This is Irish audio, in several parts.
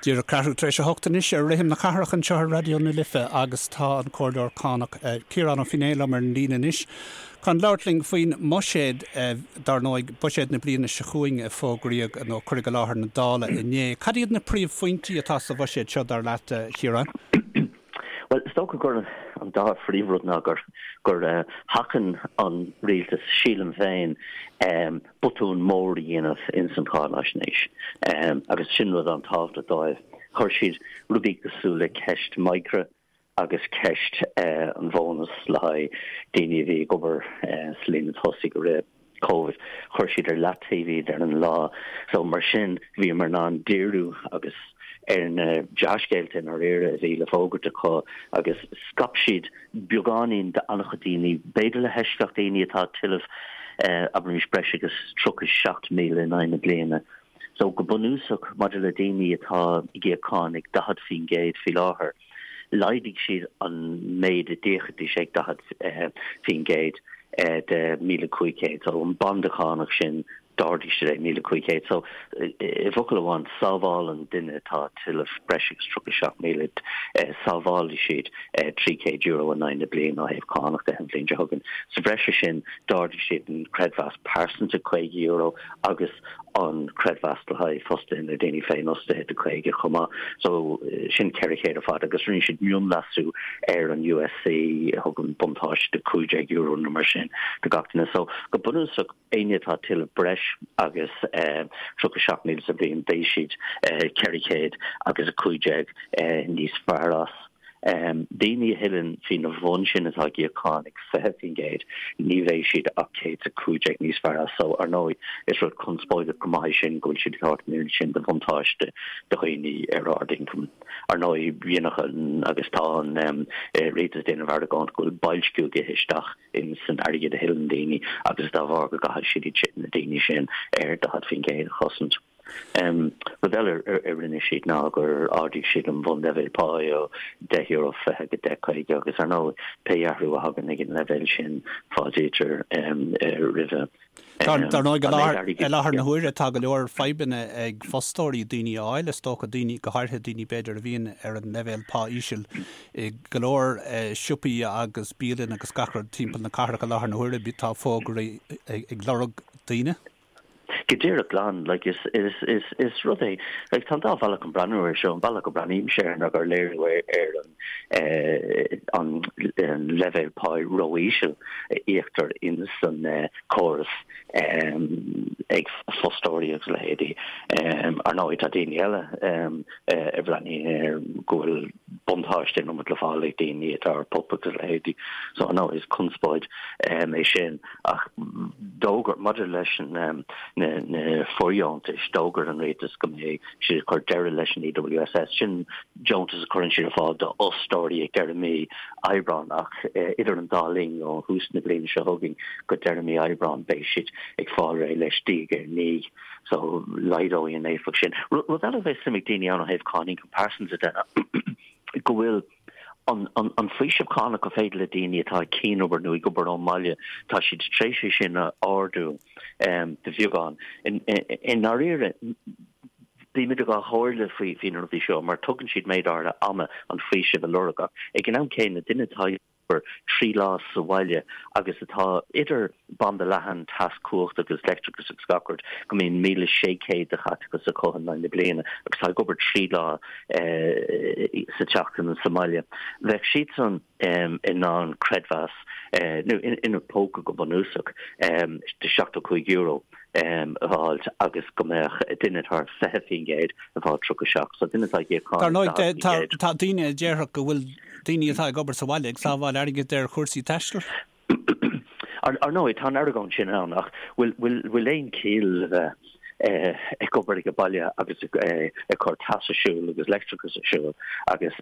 Díreach ceathrú tar éis a hocht anois ar Rithim na Cathrach anseo ar Raidió na Life agus tá an Comhairleoir Cánach Ciarán Ó Feinneadha liom ar an líne anois chun labhairt linn faoin mbuiséad, dar ndóigh, buiséad na bliana seo chugainn a fógraíodh nó a cuireadh i láthair na Dála inné. Cad iad na príomhphointí atá sa bhuiséad seo, dar leat, a Chiaráin? Bhuel, is dócha gur an dá phríomhrud ná gur gur sheachain an rialtas, sílim féin, botún mór a dhéanamh ins an cháinaisnéis agus sin rud an-tábhachtach dóibh. Chuir siad rudaí cosúil le ceist Micra agus ceist an bhónas le haghaidh daoine a bhí ag obair sa líne tosaigh i rith Covid, chuir siad ar leataobh iad ar an lá. So mar sin bhíomar in ann díriú agus ar na dea-scéalta i ndáiríre a bhí le fógairt acu agus scaip siad beagáinín d'an-chuid daoine, b'fhéidir le heisceacht daoine atá ag tuilleamh, abraimis, breis agus 37,000 in aghaidh na bliana. So, go bunúsach, maidir le daoine atá ag íoc cáin ag 40% faoi láthair, laghdaigh siad an méid a d'íocfaidís ag 40% de 1,500. So, an banda cánach sin D'ardaigh siad é 1,500. So, i bhfocal amháin, sábhálann duine atá ag tuilleamh breis agus 37,000, sábhálfaidh siad €300 in aghaidh na bliana ó thaobh cánach de an bhliain seo chugainn. Sa bhreis air sin, d'ardaigh siad an creidmheas pearsanta €50 agus an creidmheas le haghaidh fostaithe nó daoine féinfhostaithe de 50 chomh maith. So, sin 400 ar fad agus rinne siad mionleasú ar an USC a thugann buntáiste de €15 nó mar sin do gach duine. So, go bunúsach, Éinne atá ag tuilleamh breis agus 37,000 sa bhliain, beidh siad 415 níos fearr as. Daoine a thuilleann faoina bhun sin atá ag íoc cáin ag 20%, ní bheidh siad ach 115 níos fearr as. So, ar ndóigh, is rud conspóideach go maith é sin go bhfuil siad ag tabhairt an oiread sin de bhuntáiste do dhaoine ar ard-ioncam. Ar ndóigh, dhéanfadh an, agus tá an rialtas ag déanamh argóint go bhfuil boilsciú ag ithe isteach in san airgead a thuilleann daoine agus dá bharr go gcaithfidh siad iad na daoine sin ar 40% a chosaint. Rud eile a rinne siad ná gur ardaigh siad an bhunleibhéal páí ó €10.20 go 10.50 agus ar ndóigh pé athrú a thagann ag an leibhéal sin fáiltítear roimhe. Dar ndóigh, i láthair na huaire tá go leor fadhbanna ag fostóirí daoine a fháil, is dócha, daoine, go háirithe daoine b'fhéidir a bhíonn ar an leibhéal pá íseal i go leor siopaí agus bialann agus gach rud timpeall na cathrach i láthair na huaire, tá fógraí ag lorg daoine. Go díreach glan, like is, is, is, is rud é, like tá an dá bhealach chun breathnú air seo, an bealach a breathnaímse air ná gur léiriú é ar an an leibhéal páí ró-íseal a íoctar ins an córas ag fostóirí agus a leithéidí. Ar ndóigh, tá daoine eile a bhreathnaíonn air go bhfuil buntáiste an iomad le fáil ag daoine atá ar PUP agus a leithéidí. So, ar ndóigh, is conspóid é sin. Ach d'fhógair, maidir leis na fóirdheontais, d'fhógair an rialtas go mbeidh siad ag cur deireadh leis an EWSS. Sin deontas a chuireann siad ar fáil d'fhostóirí ag deireadh mí Aibreáin ach idir an dá linn, ó thús na bliana seo chugainn go deireadh mí Aibreáin, beidh siad ag fáil réidh leis diaidh ar ndiaidh. So laghdóidh an éifeacht sin. Rud eile a bheidh suim ag daoine ann ó thaobh cáin ioncam pearsanta de ná go bhfuil an faoiseamh cánach gur féidir le daoine atá ag cianobair nó ag obair ón mbaile, tá siad tar éis é sin a ardú de bheagán. I ndáiríre, bímid idir dhá chomhairle faoi na rudaí seo mar tugann siad méid áirithe ama an faoiseamh a lorg ach ag an am céanna duine atá ag obair 3 lá sa bhaile agus atá idir banda leathan, teas, cumhacht agus leictreachas agus gach rud, go mbíonn 1,600 de chaiteachas acu in aghaidh na bliana agus tá ag obair 3 lá sa tseachtain sa mbaile. Bheadh siadsan in ann creidmheas nó ina bpóca go bunúsach de €75 a fháilt agus go mbeadh duine atá ar 20% ag fáil 37. So duine atá ag íoc cáin ag 40%. Tá daoine a déarfadh go bhfuil daoine atá ag obair sa bhaile ag sábháil airgid ar chúrsaí taistil. Ar ndóigh, tá an argóint sin ann, ach bhfuil aon chiall le bheith ag obair ag an baile agus ag cur teas ar siúl agus leictreachas ar siúl agus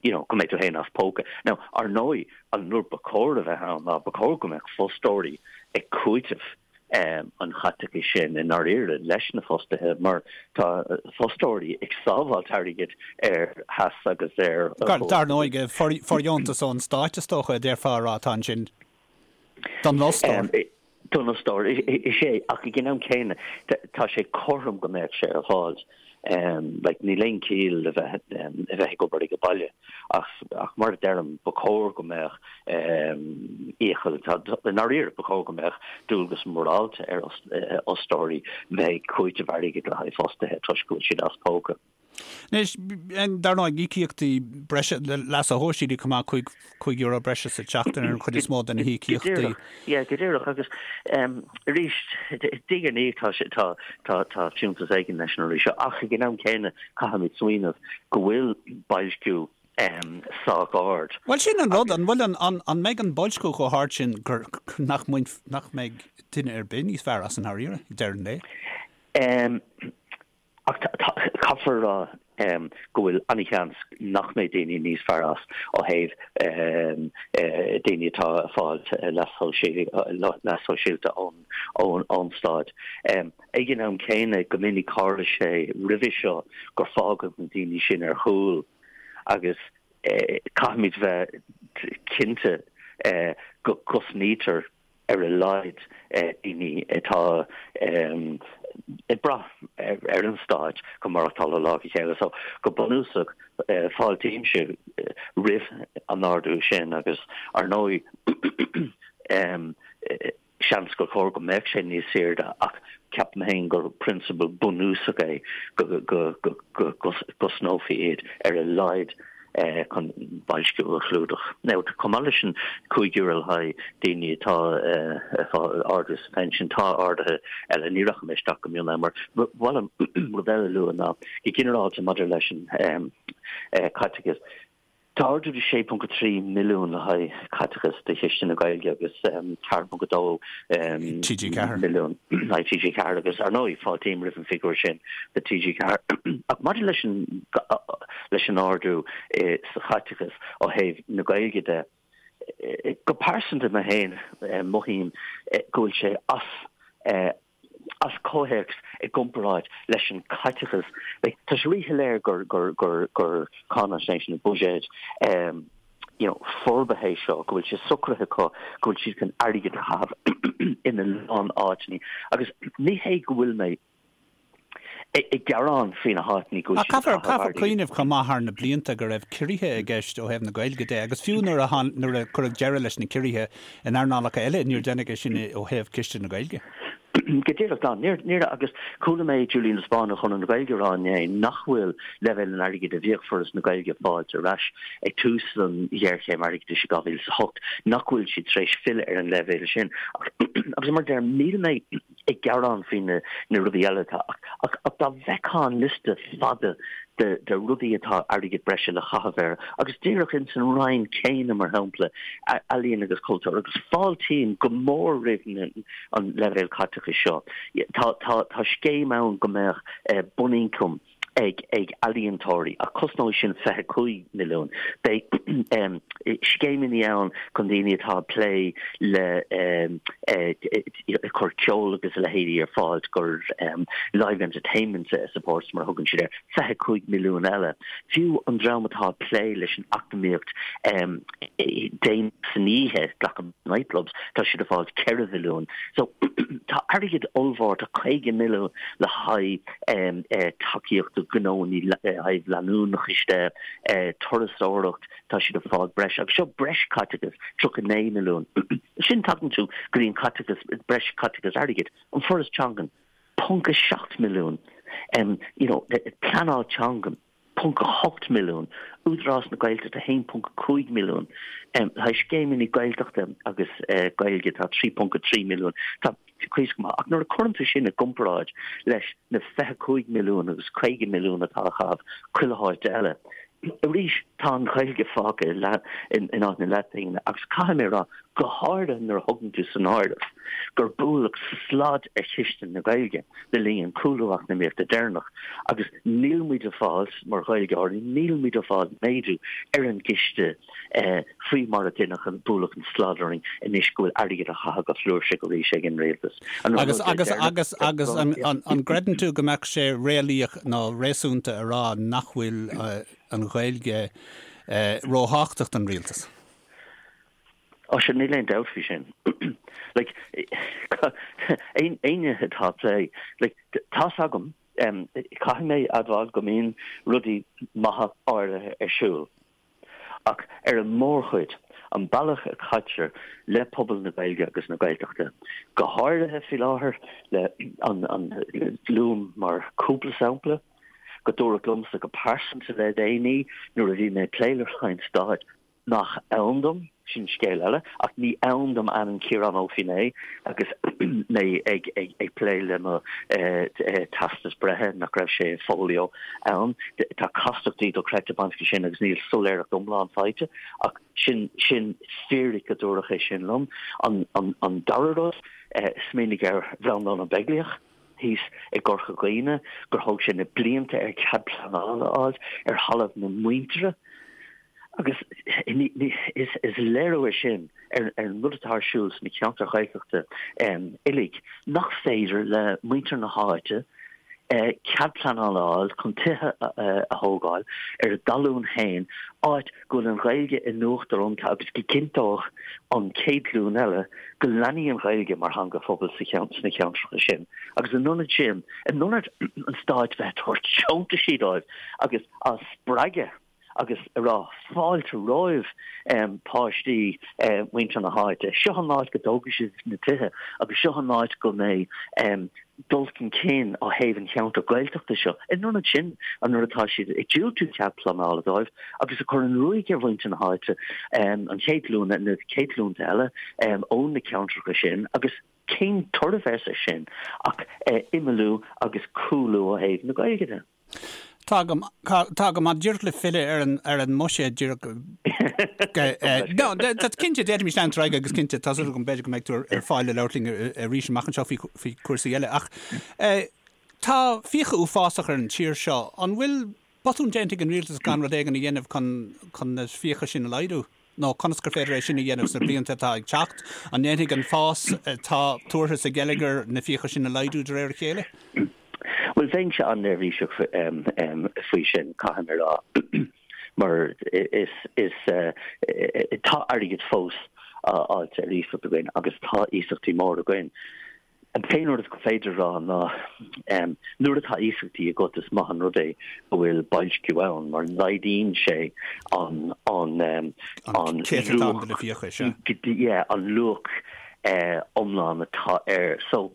you know, go mbeidh tú féin as póca. Now, ar ndóigh, an rud ba chóir a bheith ann ná ba chóir go mbeadh fostóirí ag cúiteamh an chaiteachais sin i ndáiríre leis na fostaithe mar tá fostóirí ag sábháilt airgid ar theas agus ar Dar ndóigh, fóirdheontas ón stáit is dócha a déarfá a rá atá ansin don fhostóir. Don fhostóir, is ea, ach ag an am céanna tá sé cothrom go mbeadh sé ar fáil. Like, níl aon chiall le bheith a bheith ag obair ag baile ach ach mar a deirim, ba chóir go mbeadh iachall, i ndáiríre, ba chóir go mbeadh dualgas morálta ar fhostóirí bheith ag cúiteamh airgid le haghaidh fostaithe toisc go bhfuil siad as póca. Anois, dar ndóigh, íocaíochtaí breise, leasa shóisialaigh chomh maith, €5 breise sa tseachtain ar an chuid is mó de na híocaíochtaí. Go díreach, yeah, go díreach. Agus arís, diaidh ar ndiaidh tá sé, tá, tá, tá fiúntas éigin leis an rudaí seo. Ach ag an am céanna, caithfimid smaoineamh go bhfuil boilsciú sách ard. Bhuel, sin an rud, an bhfuil an, an, an mbeidh an boilsciú chomh hard sin gur, nach mbainf, nach mbeidh duine ar bith níos fearr as i ndáiríre, ag deireadh an lae? Ach caithfear a rá go bhfuil an-sheans nach mbeidh daoine níos fearr as ó thaobh daoine atá ag fáil leas sóisialta ón stát. Ag an am céanna, go minic tharla sé roimhe seo gur fágadh na daoine sin ar chúl agus caithfimid bheith cinnte go gcosnaítear ar a laghad daoine atá ag brath ar an stát chun maireachtáil ó lá go chéile. So, go bunúsach, fáiltímse roimh an ardú sin agus, ar ndóigh, seans gur chóir go mbeadh sé níos airde ach ceapaim féin gur prionsabal bunúsach é go gcosnófaí iad ar a laghad. chun boilsciú a chlúdach. Now, chomh maith leis an €5 le haghaidh daoine atá ag fáil ardú sa phension, tá arduithe eile, ní rachaidh mé isteach go mion ann mar ba mhaith liom rud eile a lua ná go ginearálta maidir leis an caiteachas, tá ardú de 6.3 milliún le haghaidh caiteachas do Chiste na Gaeilge agus 4.2 milliún le haghaidh TG4 agus ar ndóigh fáiltím roimh an figiúr sin do TG4. Ach maidir leis an leis an ardú sa chaiteachas ó thaobh na Gaeilge de. Go pearsanta mé féin, mothaím go bhfuil sé as as comhthéacs i gcomparáid leis an chaiteachas. Tá sé ríshoiléir gur gur gur gur cáinaisnéis nó buiséad you know forbartha é seo, go bhfuil sé socraithe acu go bhfuil siad chun airgead a chaitheamh ina lán áiteanna. Agus ní hé go bhfuil mé ag gearán faoi na háiteanna go bhfuil siad ag caitheamh airgid. Caithfear cuimhneamh chomh maith thar na blianta go raibh ciorruithe i gceist ó thaobh na Gaeilge de agus fiú nuair a nuair a cuireadh deireadh leis na ciorruithe in earnálacha eile níor deineadh é sin ó thaobh Ciste na Gaeilge. Go díreach, Dan. Níor, níor, agus chuala mé Julian de Spáinn ó Chonradh na Gaeilge ag rá inné nach bhfuil leibhéal an airgid a bhíodh Foras na Gaeilge ag fáilt ar ais ag tús an ghéarchéim airgeadais i 2008, nach bhfuil siad tar éis filleadh ar an leibhéal sin. Agus mar a deirim, níl mé ag gearán faoi na na rudaí eile atá ach ach dá bhfeicfeá an liosta fada de de rudaí atá airgead breise le chaitheamh air agus díreach ins an Roinn céanna mar shampla ealaíon agus cultúr agus fáiltím go mór roimh na an leibhéal caiteachais seo. Tá tá tá scéim ann go mbeadh bunioncam ag ag ealaíontóirí ach cosnóidh sin 25 milliún. Beidh scéimeanna ann chun daoine atá ag plé le ag cur ceol agus a leithéidí ar fáil gur live entertainment supports mar a thugann siad air, 25 milliún eile. Fiú an dream atá ag plé leis an eacnamaíocht déanach san oíche, glacaim nightclubs, tá siad ag fáil 4 mhilliún. So tá airgead ollmhór, tá 50 milliún le haghaidh tacaíocht do ghnónna le haghaidh leanúnachais de, turasóireacht, tá siad ag fáil breis, agus seo breis caiteachas, 39 milliún. Sin tagann tú go dtí an caiteachas, breis caiteachas airgid, an Foras Teangan, ponc 7 milliún, you know, pleanáil teangan, ponc 8 milliún, Údarás na Gaeltachta 1.5 milliún, le haghaidh scéimeanna Gaeltachta agus Gaeilge tá 3.3 milliún. Tá cuid go maith. Ach nuair a chuireann tú sin i gcomparáid leis na 25 milliún agus 50 milliún atá á chaitheamh chuile háit eile, arís tá an Ghaeilge fágtha in áit na leathphingine agus caithfidh mé a rá, go háirithe nuair a thugann tú san áireamh gur buaileadh slad ar chiste na Gaeilge le linn an cúlú eacnamaíochta deireanach agus níl muid ag fáil, mar Ghaeilgeoirí, níl muid ag fáil méadú ar an gciste faoi mar a deineadh an buaileadh an slad orainn anois go bhfuil airgead á chaitheamh go flúirseach arís ag an rialtas. Agus, agus, agus, agus an, an, an gcreideann tú go mbeadh sé réalaíoch nó réasúnta a rá nach bhfuil an Ghaeilge róthábhachtach don rialtas? Ó sea, níl aon dabht faoi sin. Like, éinne atá ag plé, like, tá's agam. Caithfidh mé admháil go mbíonn rudaí maithe áirithe ar siúl. Ach ar an mórchuid, an bealach a chaitear le pobal na Gaeilge agus na Gaeltachta, go háirithe faoi láthair le an luaim mar cúpla sampla, go dúradh liomsa go pearsanta le déanaí nuair a bhí mé ag plé le Roinn Stáit nach ann dom, sin scéal eile, ach ní ann dom ainm Ciarán Ó Feinneadha agus mé ag ag plé le mo teastas breithe, nach raibh sé i folio ann. Tá castachtaí dochreidte bainteach leis sin agus níl soiléireacht iomlán faighte, ach sin sin fíric go dúradh é sin liom. An an dara rud, smaoinigh ar Bhreandán Ó Beaglaoich thíos i gCorca Dhuibhne, gur thóg sé na blianta air cead pleanála a fháil ar thalamh na muintire. Agus is léiriú é sin ar an rud atá ar siúl sna ceantair Ghaeltachta uilig, nach féidir le muintir na háite cead pleanála a fháil chun tithe a thógáil ar a dtalún féin, áit go bhfuil an Ghaeilge in uachtar iontu agus go gcinnteodh an chéad ghlúin eile go leanfaidh an Ghaeilge mar theanga phobail sna ceantracha sin. Agus in ionad sin, in ionad an stáit bheith ag tabhairt deontaisí dóibh agus á spreagadh, agus ag rá fáilte romhaibh páistí muintir na háite, seo an áit go dtógfaidh sibh na tithe agus seo an áit go mbeidh dul chun cinn ó thaobh an cheantair Gaeltachta seo. In ionad sin, an nuair atá siad ag diúltú cead pleanála dóibh agus ag cur an ruaig ar mhuintir na háite, an chéad ghlúin, na chéad ghlúnta eile ó na ceantracha sin agus cén toradh a bheas air sin ach imeallú agus cúlú ó thaobh na Gaeilge de. Tá go, tá go maith díreach le filleadh ar an, ar an mbuiséad díreach no, tá cinnte d'fhéadfaimis leanúint ar aghaidh agus cinnte tá súil agam b'fhéidir go mbeidh tú ar fáil le labhairt linn arís amach anseo faoi, faoi chúrsaí eile ach tá fiacha uafásach ar an tír seo. An bhfuil botún déanta ag an rialtas gan rud éigin a dhéanamh chun, chun na fiacha sin a laghdú? Nó conas gur féidir é sin a dhéanamh sna blianta atá ag teacht? An ndéanfaidh an fás atá tuartha sa gheilleagar na fiacha sin a laghdú de réir a chéile? Bhuel, bheinnse an-neirbhíseach faoi sin, caithfidh mé a rá, mar is, is, tá airgead fós á fháilt ar iasacht againn agus tá iasachtaí móra againn. An t-aon rud is féidir a rá ná nuair atá iasachtaí agat is maith an rud é go bhfuil boilsciú ann mar laghdaíonn sé an an an céatadán de na fiacha, sea. Yeah, an luach iomlán atá air. So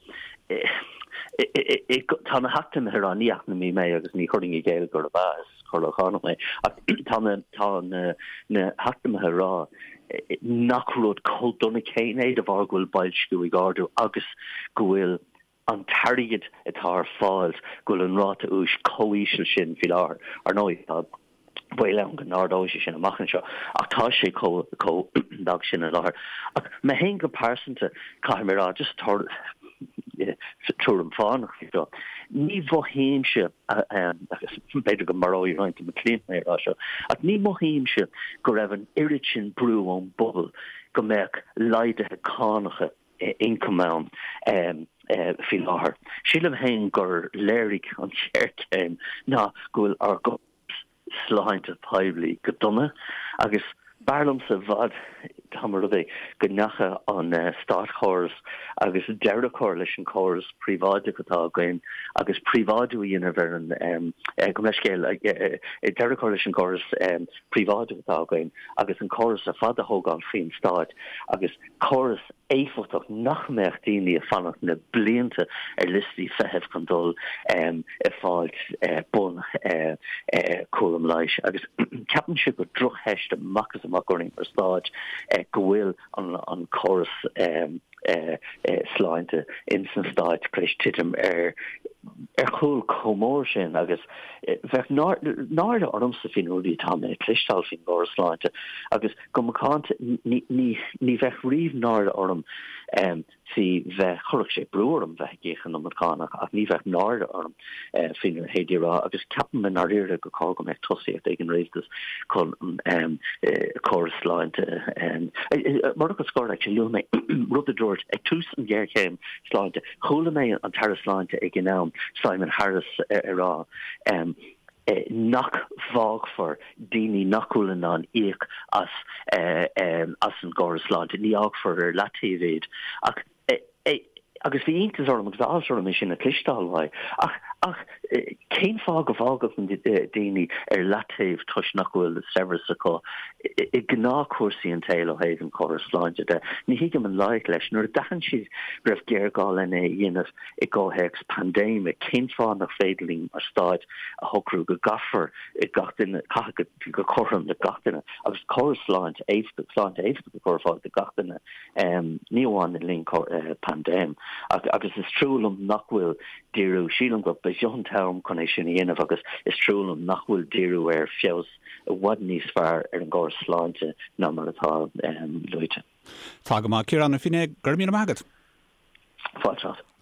tá na heacnamaithe ag rá, ní eacnamaí mé agus ní chuirfinn i gcéill gurb ea, is comhairleoir cánach mé, ach tá na tá na na heacnamaithe ag rá nach rud chomh dona céanna é de bharr go bhfuil boilsciú ag ardú agus go bhfuil an t-airgead atá ar fáil, go bhfuil an ráta úis chomh íseal sin faoi láthair. Ar ndóigh, tá baol ann go n-ardóidh sé sin amach anseo, ach tá sé chomh lag sin i láthair. Ach mé féin go pearsanta, caithfidh mé a rá, just tuairim fánach faoi seo, ní mhothaímse, agus b'fhéidir go maróidh roinnt de mo chliaint mé ag rá seo, ach ní mhothaímse go raibh an oiread sin brú ón bpobal go mbeadh laghduithe cánacha ioncaim ann faoi láthair. Sílim féin gur léirigh an ghéarchéim ná go bhfuil ár gcóras sláinte poiblí go dona agus b'fhearr liomsa i bhfad dá mba rud é go ndeachaigh an státchóras agus deireadh a chur leis an chóras príobháideach atá againn agus príobháidiú a dhéanamh ar an, gabh mo leithscéal, deireadh a chur leis an gcóras príobháideach atá againn agus an córas ar fad a thógáil faoin stát agus córas éifeachtach nach mbeadh daoine ag fanacht na blianta ar liostaí feithimh chun dul ag fáilt bun cúram leighis. Agus ceapaimse gur drochtheist amach is amach orainn mar stát go bhfuil an córas sláinte ins na Stáit tar éis titim ar ar chúl chomh mór sin agus bheadh náire ormsa faoi na rudaí atá mé ag cloisteáil faoin gcóras sláinte agus Go macánta, ní bheadh riamh náire orm faoi bheith, chuirfeadh sé brú orm bheith ag íoc an iomad cánach ach ní bheadh náire orm faoina leithéidí a rá agus ceapaim i ndáiríre gur chóir go mbeadh tosaíocht ag an rialtas chun an córas sláinte Mar fhocal scoir, actually, luaigh mé rud a dúirt ag tús an ghéarchéim sláinte, chuala mé an tAire Sláinte ag an am, Simon Harris, ag rá nach bhfágfar daoine nach bhfuil in ann íoc as as an gcóras sláinte, ní fhágfar ar leataobh iad. Ach, agus bhí iontas orm agus áthas orm é sin a chloisteáil uaidh. Ach, ach. Cén fáth go bhfágfadh daoine ar leataobh toisc nach bhfuil saibhreas acu i ngnáthchúrsaí an tsaoil ó thaobh an chórais sláinte de? Ní thuigim an loighic leis. Nuair a d'aithin siad go raibh géarghá lena dhéanamh i gcomhthéacs paindéime, cén fáth nach féidir linn mar stáit a shocrú go gcaithfear gach duine, caitheamh go cothrom le gach duine agus córas sláinte éifeachtach, sláinte éifeachtach a chur ar fáil do gach duine? Ní amháin le linn paindéim. Agus is trua liom nach bhfuil díriú, sílim go b'é seo an t-am chun é sin a dhéanamh agus is trua liom nach bhfuil díriú ar feabhas i bhfad níos fearr ar an gcóras sláinte ná mar atá luaite. Tá go maith. Ciarán Ó Feinneadha, go raibh míle maith agat. Fáilte.